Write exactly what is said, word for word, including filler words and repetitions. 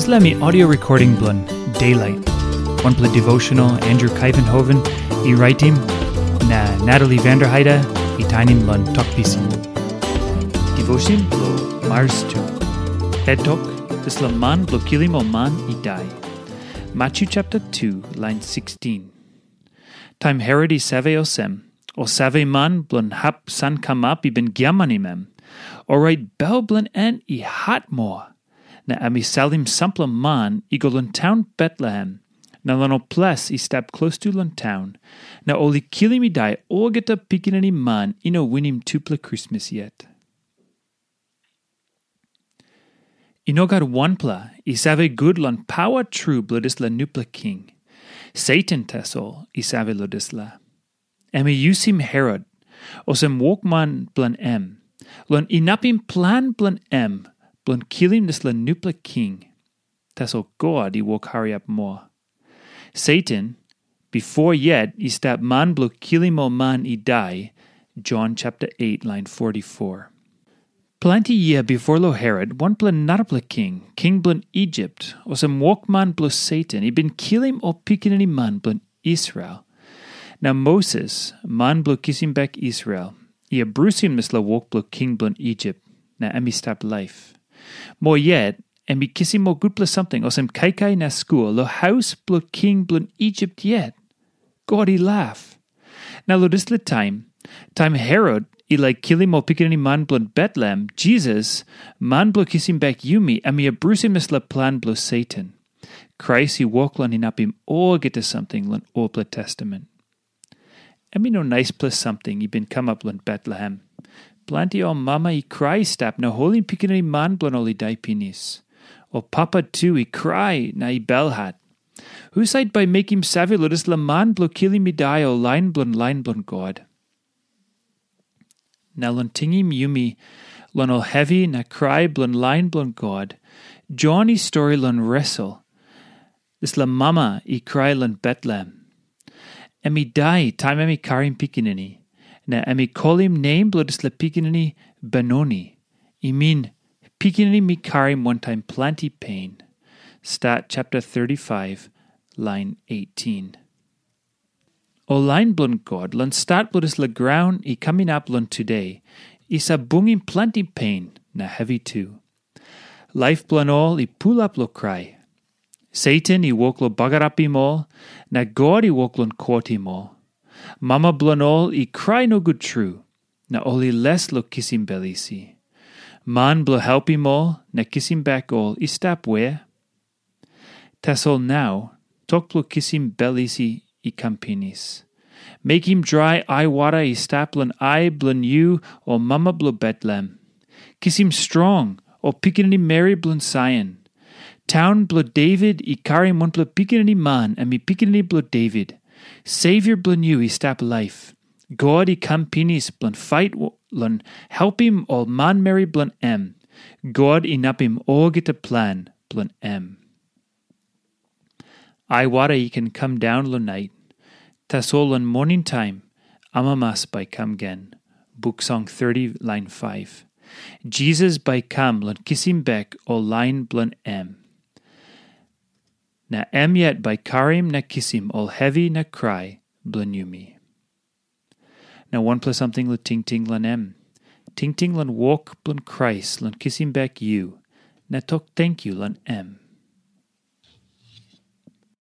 Dispela mi audio recording bilong Daylight, wanpela devotional Andrew Kaivenhoven i raitim, na Natalie Vanderheide i tainim long Tok Pisin. Devotion bilong Mars tu. Het tok, dispela man bilong kilim ol man i dai. Matyu chapter tu, lain sikstin. Taim Herot i save olsem, ol saveman bilong hap sankamap i bin giamanim em, orait bel bilong en i hat moa, na em i salim sampela man i go long taun Betlehem, na long ol ples i stap klostu long taun, na ol i kilim i dai olgeta pikinini man i no winim tupela krismas yet. I no gat wanpela i save gut long pawa tru bilong dispela nupela king. Satan tasol i save long dispela. Em i yusim Herot olsem wokman bilong em, long inapim plan bilong em bilong kilim dispela nupela king. Tasol God i wok hariap moa. Satan, bipo yet i stap man bilong kilim ol man i dai, Jon chapter eight, lain forty-four. Planti yia bipo long Herot, wanpela narapela king, king bilong Isip, olsem wokman bilong Satan, i bin kilim ol pikinini man bilong Israel. Na Moses, man bilong kisim bek Israel, i abrusim dispela wok bilong king bilong Isip, na em i stap laip. Moa yet, em i kisim ol gutpela samting olsem kaikai na skua long haus bilong king bilong Isip yet. God i laip. Na long dispela taim, taim Herot i laik kilim ol pikinini man bilong Betlehem, Jisas, man bilong kisim bek yumi, em i abrusim dispela plan bilong Satan. Krais i wok long inapim olgeta samting long olpela testament. Em i no naispela samting i bin kamap long Betlehem. Planti ol mama i krai i stap na holim pikinini man bilong ol i dai pinis. Ol papa tu i krai na i belhat. Husat bai mekim save long dispela man bilong kilim i dai ol lain bilong lain bilong God? Na long tingim yumi long ol hevi na krai bilong lain bilong God, Jon i stori long Resel, dispela mama i krai long Betlehem. Em i dai taim em i karim pikinini, na em i kolim nem bilong dispela pikinini Benoni, i min, pikinini mi karim wantaim planti pen. Stat chapter thirty-five, lain eighteen. Ol lain bilong God long stat bilong dispela graun i kam inap long tude, i save bungim planti pen na hevi tu. Laip bilong ol i pulap long krai. Satan i wok long bagarapim ol, na God i wok long kotim ol. Mama bilong ol i krai nogut tru, na ol i les long kisim bel isi. Man bilong helpim ol na kisim bek ol i stap we? Tasol nau, tok bilong kisim bel isi i kam pinis. Mekim drai aiwara i stap long ai bilong yu, o mama bilong Betlehem. Kisim strong, o pikinini meri bilong Saion. Taun bilong Devit i karim wanpela pikinini man, em i pikinini bilong Devit. Savior bilong yu i stap laip. God i kam pinis bilong fait long helpim ol manmeri bilong em. God inapim olgeta plan bilong em. Aiwara i ken kam daun long nait, tasol long moning taim amamas bai kam gen. Buk Song thirty, lain five. Jisas bai kam long kisim bek ol lain bilong em. Na em yet bai karim na kisim ol hevi na krai bilong yumi. Na wanpela samting long tingting long em. Tingting long wok bilong Krais long kisim bek yu, na tok tenkyu long em.